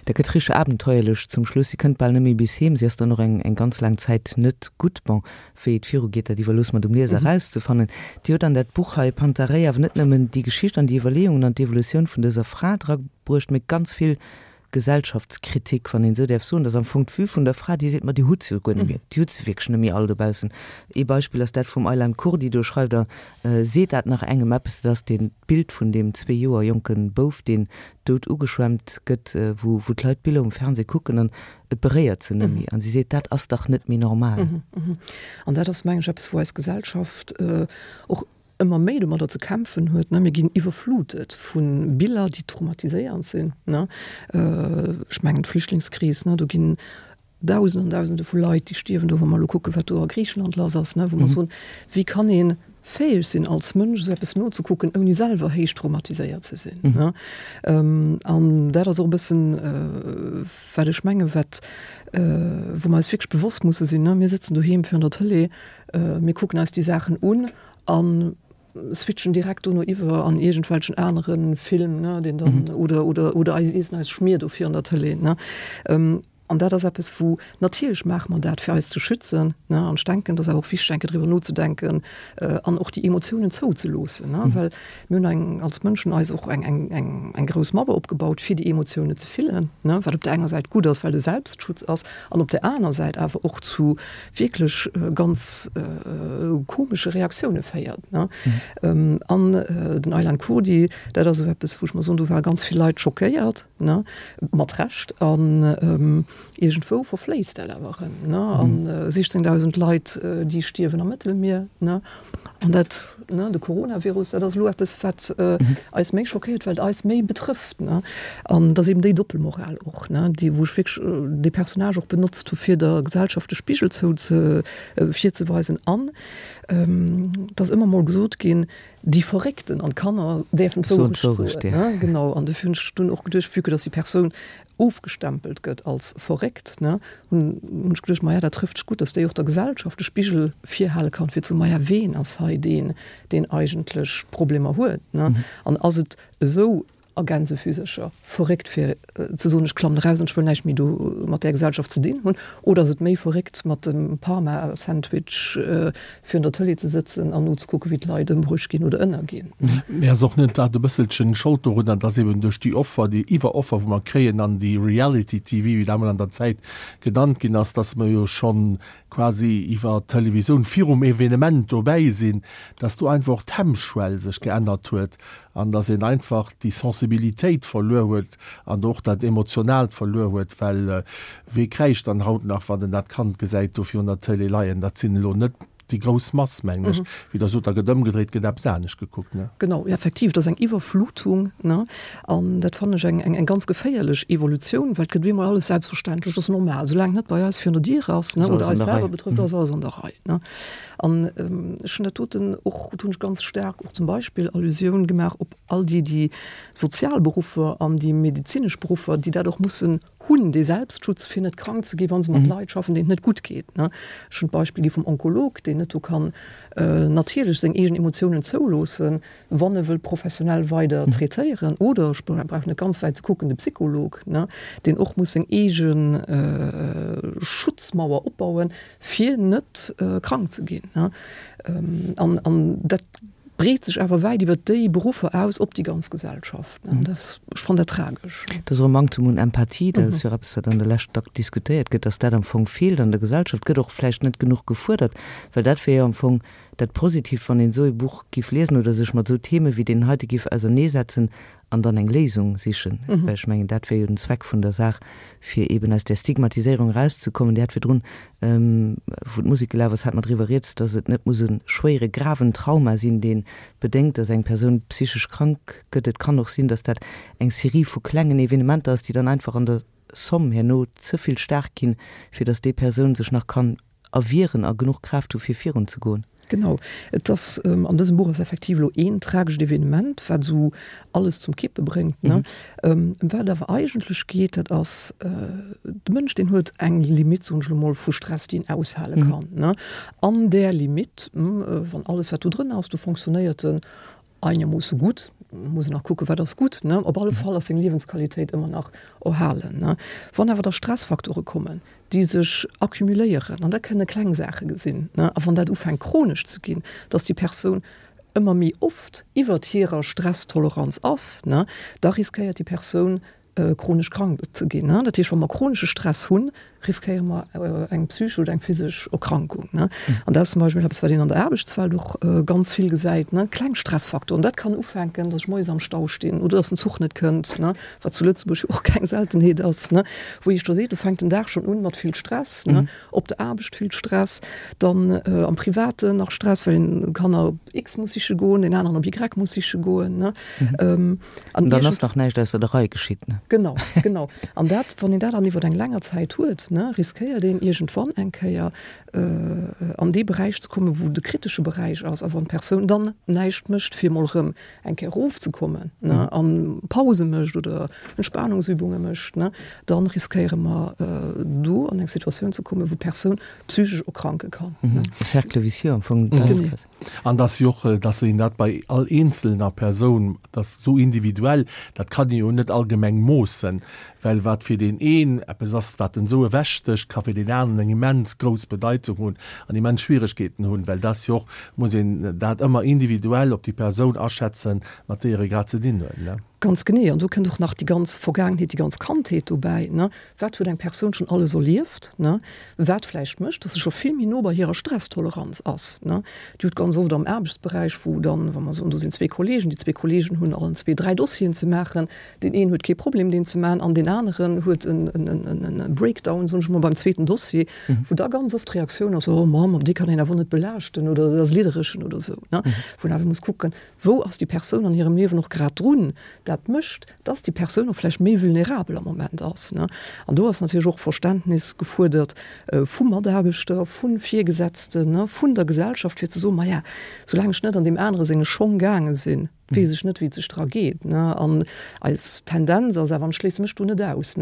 Dat gëtt richteg abenteuerlech zum Schluss. Si kënnt bal net méi bis heem. Si ass dann och eng eng ganz laang Zäit net gutt. Bon, wéi et virugeet, dat iwwerloosse mer dem Lieser erauszefannen. Dir hutt an dat Buch hei, Panta Rhei, awer net nëmmen déi Geschicht an déi Iwwerleeungen an d'Evolutioun vun dëser Fra drabruecht, mee ganz vill Gesellschaftskritik, wann een esou däerf soen, dass am Fong d'Vue vun der Fra, déi seet, ma déi hutt se jo guer net méi, déi hutt se wierklech net méi all dobaussen. Ee Beispill ass dat vum Aylan Kurdi, do schreift Der, Seet dat nach engem eppes? Dat ass deen d'Bild vun deem zwee Joer jonke Bouf, deen dout ugeschwemmt gëtt, wou wou d'Leit d'Biller um Fernseh kucken an et beréiert se net méi. An si seet, dat ass dach net méi normal. An dat ass, mengen ech, eppes, wou eis Gesellschaft och ëmmer méi domadder ze kämpfen huet, ne, mir ginn iwwerflutet vu Biller, déi traumatiséierend sinn, ne. Ech mengen d'Flüchtlingskris, ne, do ginn Dausenden an Dausende vu Leit, déi stierwen do, wa mer elo kucken, wat do a Griichenland lass ass, ne, wou mer soen, wéi kann ee fäeg sinn als Mënsch esou eppes nozekucken, ouni selwer héich traumatiséiert ze sinn, ne. An dat ass och e bëssen, wat ech mengen, wat, wou mer eis wierklech bewosst musse sinn, ne, mir sëtzen doheem virun der Tëlee, mir kucken eis déi Saachen un an. switchen direkt dono iwwer an iergendwelchen anere Film, ne, deen dann, oder, oder, oder eis iessen eis Schmier do virun der Tëlee, ne. An dat ass eppes, wou, natierlech maache mer dat, fir eis ze schützen, ne, an ech denken, et ass awer och wichteg, eng Kéier driwwer nozedenken an och déi Emotiounen zouzeloossen, ne, well mir hunn eng, als Mënschen eis och eng, eng, eng, eng grouss Mauer opgebaut, fir déi Emotiounen ze fillen, ne, wat op där enger Säit gutt ass, well e Selbstschutz ass, an op där aner Säit awer och zu wierklech ganz komesche Reaktioune féiert, ne. An den Aylan Kurdi, dat ass esou eppes, wou ech mer soen, do ware ganz vill Leit schockéiert, ne, mat Recht, an iergendwou verfléisst dat awer erëm, ne, an 16.000 Leit, déi stierwen am Mëttelmier, ne, an dat, ne, de Coronavirus, dat ass elo eppes, wat eis méi schockéiert, well et eis méi betrëfft, ne, an et ass eben déi Doppelmoral och, ne, déi, wou ech wierklech dee Personnage och benotzt hu fir der Gesellschaft de Spigel zou ze, virzeweisen an et ass ëmmer mol gesot ginn, Déi Verréckten an d'Kanner däerfen d'Wourecht soen. Genau, an dofir hunn ech dunn och geduecht, vue que dass déi Persoun ofgestempelt gëtt als verréckt, ne, hunn ech geduecht, maja, dat trëfft sech gutt, dass déi och der Gesellschaft de Spigel virhale kann, fir ze soen, maja, ween ass hei deen, deen eigentlech Problemer huet, ne? An ass et esou a Gänsefüsercher, verréckt fir ze soen, ech klammen eraus an ech wëll näischt méi do mat där Gesellschaft ze dinn hunn, oder ass et méi verréckt mat dem Parma-Sandwich virun der Tëlee ze sëtzen an nozekucken, wéi d'Leit ëmbruecht ginn oder ënnerginn? Mee ass och net dat e bësselchen Schold dorunner, dass eben duerch déi Offer, déi Iwweroffer wou mer kréien an déi Reality-TV, wéi dat emol an der Zäit genannt ginn ass, dass mer jo schonn quasi iwwer d'Televisioun virum Evenement dobäi sinn, dass do einfach och d'Hemmschwell sech geännert huet an dass een einfach déi Sensibilitéit verluer huet an och dat Emotionaalt verluer huet, well wee kräischt dann haut nach, wann en dat Kand gesäit do virun der Tëlee leien? Dat sinn elo net déi grouss Mass, mengen ech. Wéi Der sot, da gëtt ëmgedréit, gëtt eppes anescht gekuckt, ne? Genau, effektiv, et ass eng Iwwerflutung, ne? An dat fannen ech eng, eng ganz geféierlech Evolutioun, well et gëtt op eemol alles selbstverständlech, dat ass normal, soulaang et net bei eis virun der Dier ass, ne, oder eis selwer betrëfft, ass alles an der Rei, ne? An ech hunn dat doten och, do hunn ech ganz staark och zum Beispill Allusioun gemaach op all déi, déi sozial Beruffer an déi medezinesch Beruffer, déi dat och mussen hunn, dee Selbstschutz, fir net krank ze ginn, wa se mat Leit schaffen, deenen et net gutt geet. Ech hunn d'Beispill gi vum Onkolog, deen net do kann natierlech seng eegen Emotiounen zouloossen, wann e wëll professionell weider traitéieren. Oder, ech brauch net ganz wäit ze kucken, de Psycholog, deen och muss seng eege Schutzmauer opbauen, fir net krank ze ginn. An, an dat breet sech awer wäit iwwer déi Beruffer aus op déi ganz Gesellschaft. Dat, ech fannen dat tragesch. Dat ass och e Manktum un Empathie, dat ass jo och eppes, wat an der Lescht dack diskutéiert gëtt, dass dat am Fong feelt an der Gesellschaft, gëtt och vläicht net genuch gefuerdert, well dat wier jo am Fong dat Positiivt, wann een esou e Buch giff liesen oder sech mat esou Theme wéi deen heite giff auserneesetzen an dann eng Léisung sichen, well ech mengen, dat wär jo den Zweck vun der Saach, fir eben aus där Stigmatiséierung erauszekommen. Dir hat virdrun, wou d'Musek gelaf ass, hat mer driwwer rieds, dass et net muss e schwéiere, graven Trauma sinn, dee bedéngt, dass eng Persoun psychesch krank gëtt. Et kann och sinn, dass dat eng Serie vu klengen Evenementer ass, déi dann einfach an der Somm herno ze vill staark ginn, fir dass déi Persoun sech nach kann erwieren a genuch Kraaft hu fir virun ze goen. Genau, et ass, an dësem Buch ass effektiv elo een tragescht Evenement, wat esou alles zum Kippe bréngt, ne. Ëm wat et awer eigentlech geet, dat ass, de Mënsch, deen huet eng Limitt, soen ech elo mol, vu Stress, déi en aushale kann, ne. An där Limitt, wann alles wat do drënner ass, do fonctionnéiert en einermoosse gutt, muss een nach kucken, wat ass gutt, ne? Op alle Fall ass seng Liewensqualitéit ëmmer nach erhalen, ne? Wann awer da Stressfaktore kommen, déi sech accumuléieren, an dat kënne kleng Saache sinn, ne, a wann dat ufänkt chronesch ze ginn, dass déi Persoun ëmmer méi oft iwwert hirer Stresstoleranz ass, ne, da riskéiert déi Persoun chronesch krank ze ginn. Dat heescht, wa mer chronesche Stress hunn, riskéiere mer eng psychesch oder eng physesch Erkrankung. An dat ass zum Beispill eppes, wat een an der Aarbechtswelt och ganz vill gesäit, kleng Stressfaktoren. Dat kann ufänken, datt ech moies am Stau stinn oder datt den Zuch net kënnt, wat zu Lëtzebuerg jo och keng Seltenheet ass, wou ee scho seet, do fänkt den Dag schonn un mat vill Stress. Op der Aarbecht vill Stress, dann am Privaten nach Stress, well een Kanner op X muss siche goen, deen aneren op Y muss siche goen. Ne? Mhm. An dann ass nach näischt ausser der Rei geschitt. Ne? Genau, genau. An dat, wann een dat dann iwwer eng länger Zäit huet, ne? ne, riskéiert een iergendwann eng Kéier an dee Beräich ze kommen, wou de kritesche Beräich ass, a wann d'Persoun dann näischt mécht, fir emol erëm eng Kéier erofzekommen, ne, a Pause mécht oder Entspanungsübunge mécht, ne, da riskéiere mer do an eng Situatioun ze kommen, wou d'Persoun psychesch erkranke kann. E Cercle vicieux am Fong. Genee. An dass jo och, dass een dat bei all eenzelner Persoun, dass esou individuell, dat kann ee jo net allgemeng moossen, well wat fir deen een eppes ass, wat en esou ewechstécht, ka fir deen aneren eng immens grouss Bedeitung hunn an immens Schwieregkeeten hunn, well dass jo och, muss een dat ëmmer individuell op déi Persoun aschätzen, mat deeër ee grad ze dinn huet. Ganz genee. An do kënnt och nach déi ganz Vergaangenheet, déi ganz Kandheet dobäi. Wat huet eng Persoun schonn alles erlieft, wat vläicht mécht, dass se scho vill méi no bei hirer Stresstoleranz ass. Dir hutt ganz oft am Aarbechtsberäich, wou dann, wa mer soen, do sinn zwee Kollegen, déi zwee Kollegen hunn allen zwee dräi Dossieren ze maachen, deen een huet kee Problem, deen ze maachen, an deen aneren huet e Breakdown, soen ech emol, beim zweeten Dossier, wou da ganz oft d'Reaktioun ass, Oh Mamm, dee kann een awer net belaaschten oder dat ass lidderechen oder esou. Wou een awer muss kucken, Wou ass déi Persoun an hirem Liewen och grad drun? Dat mécht, dass déi Persoun och vläicht méi vulnerabel am Moment ass. An do ass natierlech och Verständnis gefuerdert vu Mataarbechter, vu Virgesetzten, vun der Gesellschaft, fir ze soen, Maja, soulaang ech net an deem anere senge Schong gaange sinn, weess ech net, wéi et sech dra geet. An eis Tendenz ass awer, an ech schléisse mech do net aus,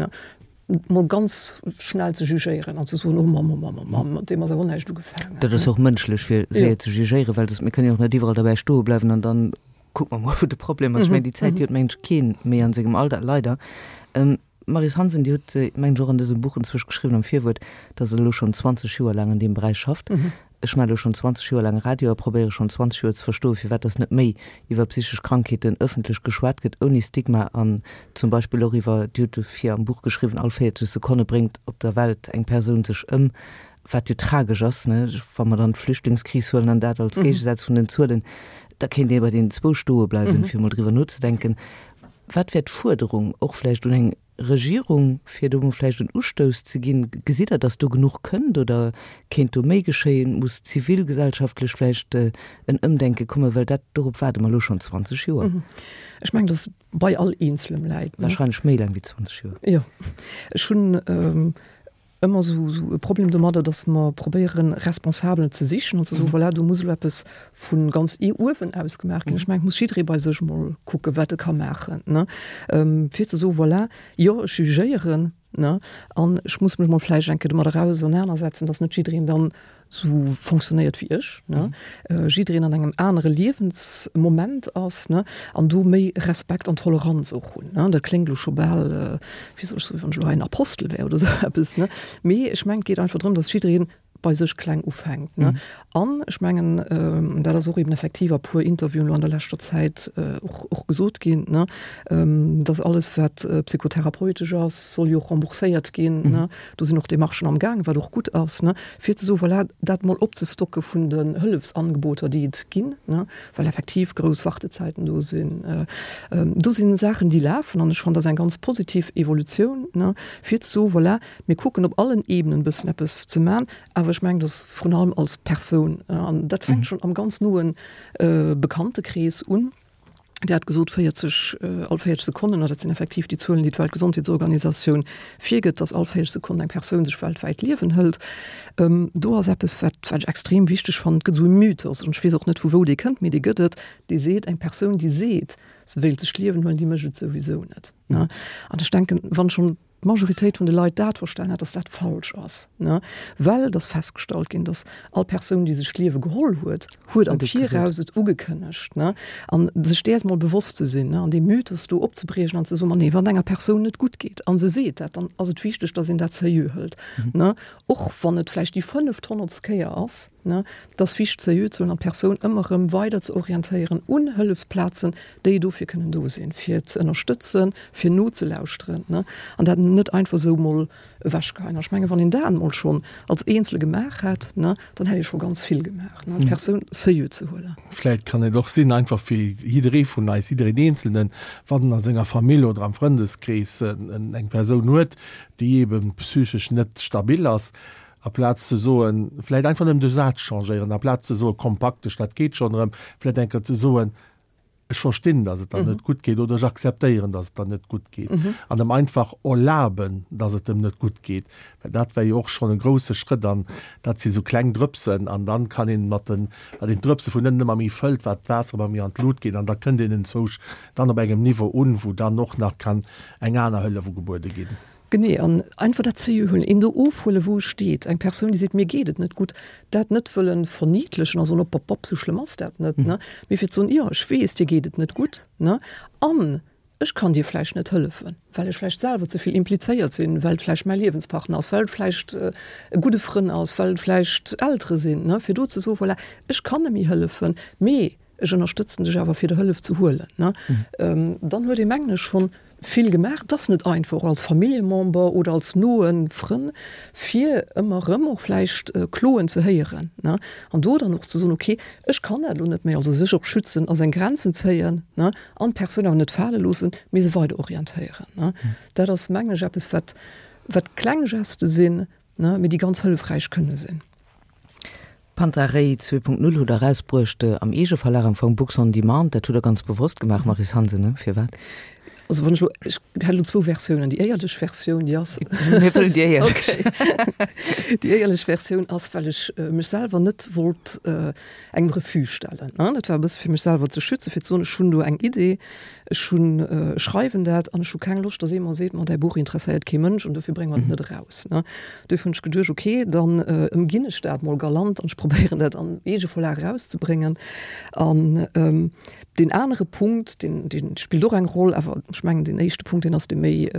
mol ganz schnell ze jugéieren an ze soen, oh Mamm, oh Mamm, oh Mamm, mat deem ass awer näischt ugefaangen. Dat ass och mënschlech, fir séier ze jugéieren, well soss, mir kënnen jo och net iwwerall derbäi stoe bleiwen an dann kucke mer mol, wou de Problem ass. Ech mengen, déi Zäit, déi huet, mengen ech, keen méi an sengem Alter, leider. Maryse Hansen, Dir hutt, mengen ech, och an dësem Buch enzwousch geschriwwen am Virwuert, datt Der elo schonn 20 Joer laang an deem Beräich schafft. Ech maache elo schonn 20 Joer laang Radio a probéiere schonn 20 Joer ze verstoen, firwat dass net méi iwwer psychesch Krankheeten ëffentlech geschwat gëtt, ouni Stigma an zum Beispill och iwwer, Dir hutt dofir am Buch geschriwwen, all 40 Sekonne bréngt op der Welt eng Persoun sech ëm, wat jo tragesch ass, ne, wa mer dann d'Flüchtlingskris huelen an dat als Géigesaz vun den Zuelen, da kéint ee bei deenen zwou stoe bleiwen, fir emol driwwer nozedenken. Wat wär d'Fuerderung och vläicht un eng Regierung, fir do mol vläicht en Ustouss ze ginn? Gesitt Der, datt do genuch kënnt oder kéint do méi geschéien? Muss zivilgesellschaftlech vläicht en Ëmdenke kommen? Well dat, dorop waarde mer elo schonn 20 Joer. Ech mengen, datt bei all Eenzelem läit. Wahrscheinlech méi laang wéi 20 Joer. Jo, ech hunn ëmmer esou esou e Problem domadder, datt mer probéieren, Responsabelen ze sichen an ze soen, voilà, do muss elo eppes vu ganz uewen aus gemaach ginn. Ech mengen, et muss jidderee bei sech emol kucken, wat e ka maachen, ne, fir ze soen, voilà, jo, ech jugéieren, ne, an ech muss mech emol vläicht eng Kéier domadder ausernanersetzen, datt net jiddereen dann sou fonctionnéiert wéi ech, ne, jiddereen an engem anere Liewensmoment ass, ne, an do méi Respekt an Toleranz och hunn, ne. Dat kléngt elo scho bal, wéi soll ech soen, wéi wann ech elo hei en Apostel wär oder sou eppes, ne, mee ech mengen, et geet einfach drëm, dass jiddereen bei sech kleng ufänkt, ne. An ech mengen, dat ass och eben effektiv a puer Interviewen elo an der leschter Zäit och, och gesot ginn, ne, dass alles, wat psychotherapeutesch ass, soll jo och rembourséiert ginn, ne. Do sinn och Demarchen am Gaang, wat och gutt ass, ne, fir ze soen, voilà, dat mol opzestocke vun den Hëllefsangeboter, déi et ginn, ne, well effektiv grouss Wartezäiten do sinn. Do si Saachen, déi lafen, an ech fannen, dat ass eng ganz positiv Evolutioun, ne, fir ze soen, voilà, mir kucken op allen Ebenen e bëssen eppes ze maachen, awer ech mengen, dass vrun allem als Persoun, an dat fänkt schonn am ganz noe Bekanntekrees un, Dir hat gesot 40, all 40 Sekonnen, dat sinn effektiv déi Zuelen, déi d'Weltgesondheetsorganisatioun virgëtt, datt all 40 Sekonnen eng Persoun sech weltwäit d'Liewen hëlt. Do ass eppes, wat wat ech extrem wichteg fannen, et gëtt esou e Mythos, an ech weess och net, vu wou dee kënnt, mee dee gëtt et, dee seet, eng Persoun, déi seet, se wéilt sech d'Liewen huelen, déi mécht et souwisou net. An ech denken, wann schonn d'Majoritéit vun de Leit dat verstan hat, dass dat falsch ass, ne, well et ass festgestallt ginn, dass all Persoun, déi sech d'Liewe geholl huet, huet am Viraus et ugekënnegt, ne, an sech däers mol bewosst ze sinn, ne, an dee Mythos do opzebriechen an ze soen, ma nee, wann et enger Persoun net gutt geet a se seet dat, dann ass et wichteg, dass een dat seriö hëlt, ne, och wann et vläicht déi fënnefthonnertst Kéier ass, ne, et ass wichteg seriö ze huelen an d'Persoun ëmmer erëm weider ze orientéieren un Hëllefsplazen, déi dofir kënnen do sinn, fir ze ënnerstëtzen, fir nozelauschteren, ne, an dat net einfach esou mol ewechgeheien. An ech mengen, wann een dat emol schonn als Eenzele gemaach hätt, ne, dann hätt ee scho ganz vill gemaach, ne, d'Persoun seriö ze huelen. Vläicht kann et och sinn, einfach fir jidderee vun eis, jiddereen Eenzelnen, wann en a senger Famill oder am Frëndeskrees eng Persoun huet, déi eebe psychesch net stabil ass, aplaz ze soen, vläicht einfach nëmmen de Saz changéieren, aplaz ze soen, komm, pak dech, dat geet schonn erëm, vläicht eng Kéier ze soen. Ech verstinn, dass et der net gutt geet, oder ech akzeptéieren, dass et der net gutt geet. An em einfach erlaben, dass et em net gutt geet, well dat wär jo och schonn e grouse Schrëtt. An dat si sou kleng Drëpsen, an dann kann een mat den, wat een d'Drëpse vun ënnen ëmmer méi fëllt, wat d'Waasser ëmmer méi an d'Lut geet, an da kënnt een enzwousch dann op engem Niveau un, wou dann och nach kann eng aner Hëllef ugebuede ginn. Genee, an einfach dat ze huelen, een do ofhuelen, wou e steet. Eng Persoun, déi seet, mir geet et net gutt, dat net wëllen verniedlechen a soen, op, op, op, sou schlëmm ass dat net, ne, mee fir ze soen, jo, ech weess, dir geet et net gutt, ne, an ech kann dir vläicht net hëllefen, well ech vläicht selwer ze vill implizéiert sinn, well et vläicht mäi Liewenspartner ass, well et vläicht e gudde Frënn ass, well et vläicht Eltere sinn, ne, fir do ze soen, voilà, ech kann net méi hëllefen, mee ech ënnerstëtzen dech awer fir der Hëllef ze huelen, ne. Dann huet ee mengen ech schonn vill gemaach. Et ass net einfach, och als Familljemember oder als noe Frënn, fir ëmmer erëm och vläicht Kloen ze héieren, ne, an do dann och ze soen, okay, ech kann dat elo net méi, also sech och schützen a seng Grenzen zéien, ne, an d'Persoun awer net fale loossen, mee se weider orientéieren, ne. Dat ass, mengen ech, eppes, wat, wat kleng Geste sinn, ne, mee déi ganz hëllefräich kënne sinn. Panta Rhei 2.0 hutt Der erausbruecht am Eegeverlag, am Fong Books on Demand. Dat hutt Der ganz bewosst gemaach, Maryse Hansen, ne? Firwat? Also wann ech elo, ech hätt elo zwou Versiounen. Déi éierlech Versioun, déi ass. Mir wëllen déi éierlech. Okay. Déi éierlech Versioun ass, well ech mech selwer net wollt engem Refus stellen. Dat war e bësse fir mech selwer ze schützen, fir ze soen, ech hunn do eng Idee, Ech hunn, ech schreiwen dat an ech hu keng Loscht, datt ee mer seet, ma däi Buch interesséiert kee Mënsch an dofir brénge mer et net eraus. Ne? Duerfir hunn ech geduecht, okay, dann ëmginn ech dat mol galant an ech probéieren dat am Eegeverlag erauszebréngen. An deen anere Punkt, deen, dee spillt och eng Roll, awer ech mengen deen éischte Punkt, deen ass dee méi,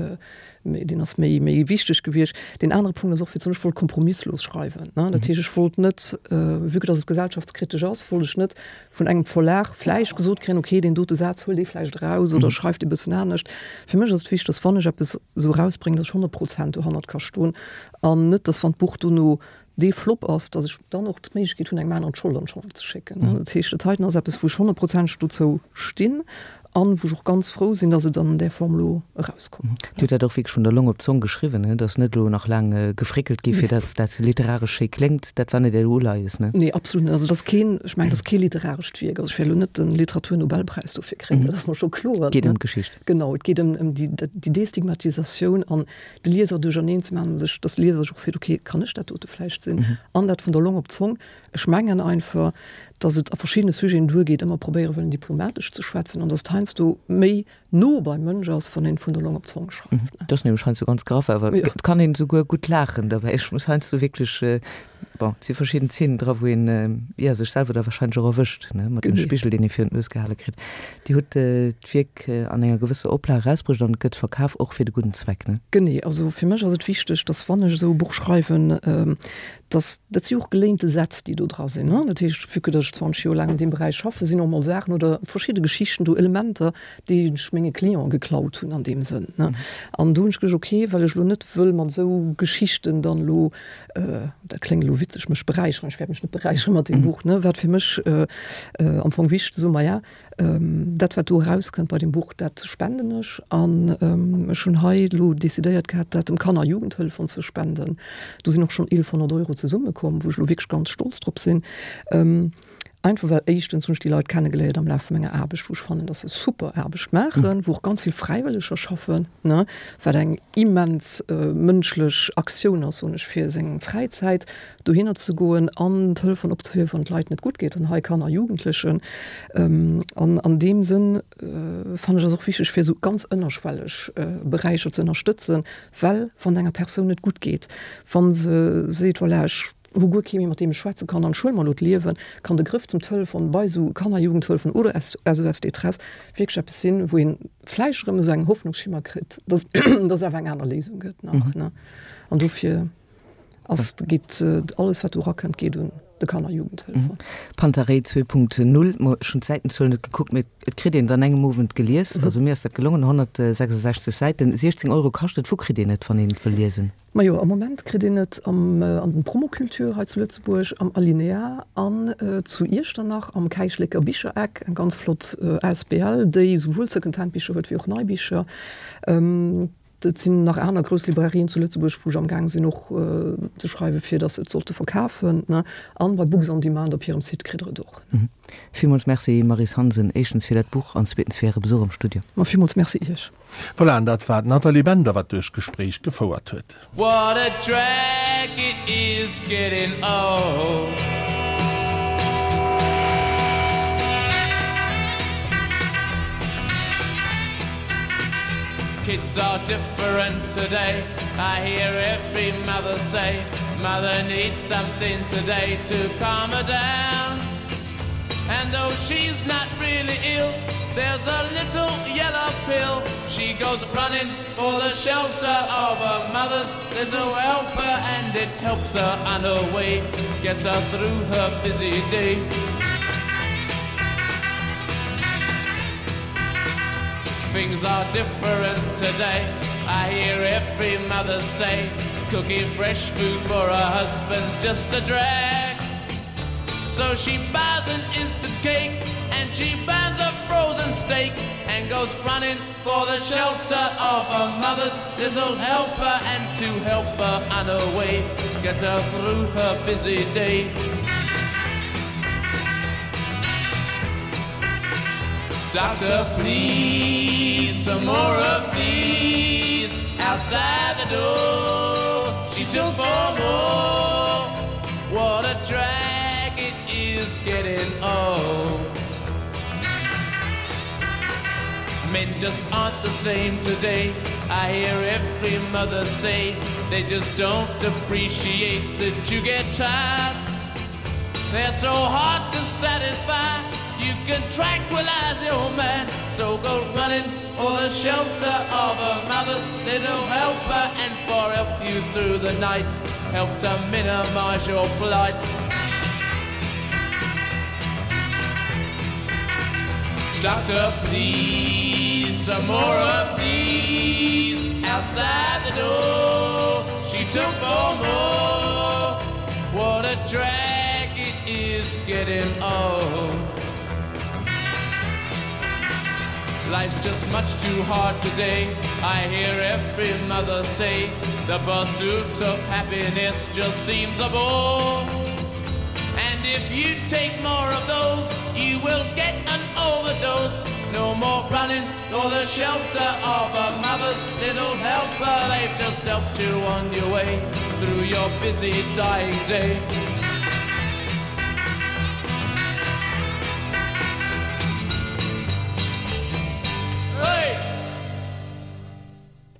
deen ass méi, méi wichteg gewiescht. Deen anere Punkt ass och fir ze soen, ech wollt kompromisslos schreiwen. Ne? Dat heescht, ech wollt net, vue que datt et gesellschaftskritesch ass, wollt ech net vun engem Verlag vläicht gesot kréien, okay, deen dote Saz huel dee vläicht eraus oder schreif dee bëssen anescht. Fir mech ass et wichteg, datt wann ech eppes esou erausbréngen, datt ech 100 Prozent dohannert ka stoen an net, datt wann d'Buch dono dee Flop ass, datt ech dann och d'Méiglechkeet hunn, engem aneren d'Schold an d'Schong ze schécken. Dat heescht, dat heiten ass eppes, wou ech honnertprozenteg dozou stinn an wou ech och ganz frou sinn, datt et an där Form elo erauskomm. Dir hutt dat och wierklech vun der Long op d'Zong geschriwwen, ne? Et ass net elo nach laang gefréckelt gi fir datt dat literaresch schéi kléngt. Dat war net Äert Uleies, ne? Nee, absolut net. Also et ass keen, ech mengen, et ass kee literarescht Wierk. Also ech wäert elo net de Literaturnobelpräis dofir kréien, dat ass mer scho kloer. Et geet ëm d'Geschicht. Genau, et geet ëm déi Destigmatisatioun an de Lieser duercherneen ze maachen, sech, datt de Lieser sech och seet, okay, kann ech dat dote vläicht sinn? An dat vun der Long op d'Zong. Ech mengen einfach, datt et a verschiddene Sujeten duergeet, ëmmer probéiere wëllen diplomatesch ze schwätzen an datt et heiansdo méi no beim Mënsch ass, wann een vun der Long op d'Zong schreift. Dat ass nämlech heiansdo ganz graff, awer et kann een esouguer gutt laachen derbäi. Ech muss heiansdo wierklech, bon, et si verschidden Zeenen dra wou een, jo, sech selwer da wahrscheinlech och erwëscht, ne, mat dem Spigel, deen ee virun d'Nues gehale kritt. Dir hutt d'Wierk an enger gewësser Oplag erausbruecht an et gëtt verkaf, och fir de gudden Zweck, ne? Genee, also fir mech ass et wichteg, dass wann ech esou e Buch schreiwen, dass, dat si och geléinte Sätz, déi do dra sinn, ne? Dat heescht, vue que dass ech 20 Joer laang an deem Beräich schaffen, sinn och mol Saachen oder verschidde Geschichten do, Elementer, déi ech menge Cliente geklaut hunn an deem Sënn, ne? An do hunn ech geduecht, okay, well ech elo net wëll mat esou Geschichten dann elo, dat kléngt elo witzeg, mech beräicheren, ech wäert mech net beräicheren mat deem Buch, ne? Wat fir mech am Fong wichteg ze soen, maja, Dat wat do erauskënnt bei dem Buch, dat spenden ech. An ech hunn hei elo decidéiert gehat, dat dem Kanner a Jugendhëlleffonds ze spenden. Do sinn och schonn 1.100 Euro zesummekomm, wou ech elo wierklech ganz stolz drop sinn. Einfach well éischtens hunn ech déi Leit kennegeléiert am Laf vu menger Aarbecht, wou ech fannen, datt se super Aarbecht maachen, wou och ganz vill Fräiwëlleger schaffen, ne, wat eng immens mënschlech Aktioun ass, soen ech, fir seng Fräizäit dohinner ze goen an d'Hëllefen opzehiewen, wann et Leit net gutt geet, an hei Kanner a Jugendlechen. An an deem Sënn fannen ech ass och wichteg, fir esou ganz ënnerschwelleg Beräicher ze ënnerstëtzen, well wann et enger Persoun net gutt geet, wa se seet, voilà, ech hu guer kee méi, mat deem ech schwätze kann an ech huele mer elo d'Liewen, kann de Grëff zum Telefon bei esou Kanner a Jugendhëllefen oder SOS Détresse wierklech eppes sinn, wou ee vläicht erëm esou eng Hoffnungsschimmer kritt, dass dass et awer eng aner Léisung gëtt nach, ne. An dofir. Ass, geet alles wat do erakënnt, geet un de Kanner Jugendhëlfer. Panta Rhei 2.0, ma ech hunn d'Säitenzuel net gekuckt, mee et kritt een et an engem Owend gelies. Also mir ass dat gelongen, 166 Säiten, 16 Euro kascht et. Wou kritt een et, wann een et wëll liesen? Majo, am Moment kritt een et am an den Promoculture hei zu Lëtzebuerg, am Alinéa an zu Iechternach am Käichlécker Bichereck, eng ganz flott asbl, déi esouwuel Secondhand-Bicher huet wéi och nei Bicher. Et sinn nach aner grouss Librairien zu Lëtzebuerg, wou ech amgaang sinn och ze schreiwen, fir datt se et sollte verkafen. An bei Books on Demand op hirem Site kritt der et och. Villmools Merci Maryse Hansen, éischtens fir dat Buch an zweetens fir Äre Besuch am Studio. Ma villmools Merci Iech. Voilà, an dat war d'Nathalie Bender, wat duerch d'Gespréich gefouert huet. What a drag it is getting old. Kids are different today. I hear every mother say, Mother needs something today to calm her down. And though she's not really ill, there's a little yellow pill. She goes running for the shelter of her mother's little helper, and it helps her on her way, gets her through her busy day. Things are different today. I hear every mother say, cooking fresh food for her husband's just a drag. So she buys an instant cake and she burns a frozen steak and goes running for the shelter of her mother's little helper and to help her on her way, get her through her busy day. Doctor, please, some more of these outside the door. She took four more. What a drag it is getting old. Men just aren't the same today. I hear every mother say they just don't appreciate that you get tired. They're so hard to satisfy. You can tranquilize your man. So go running for the shelter of a mother's little helper and for help you through the night, help to minimize your plight. Doctor, please, some more of these outside the door. She took four more. What a drag it is getting old. Life's just much too hard today. I hear every mother say the pursuit of happiness just seems a bore. And if you take more of those, you will get an overdose. No more running for the shelter of a mother's little helper. They've just helped you on your way through your busy dying day.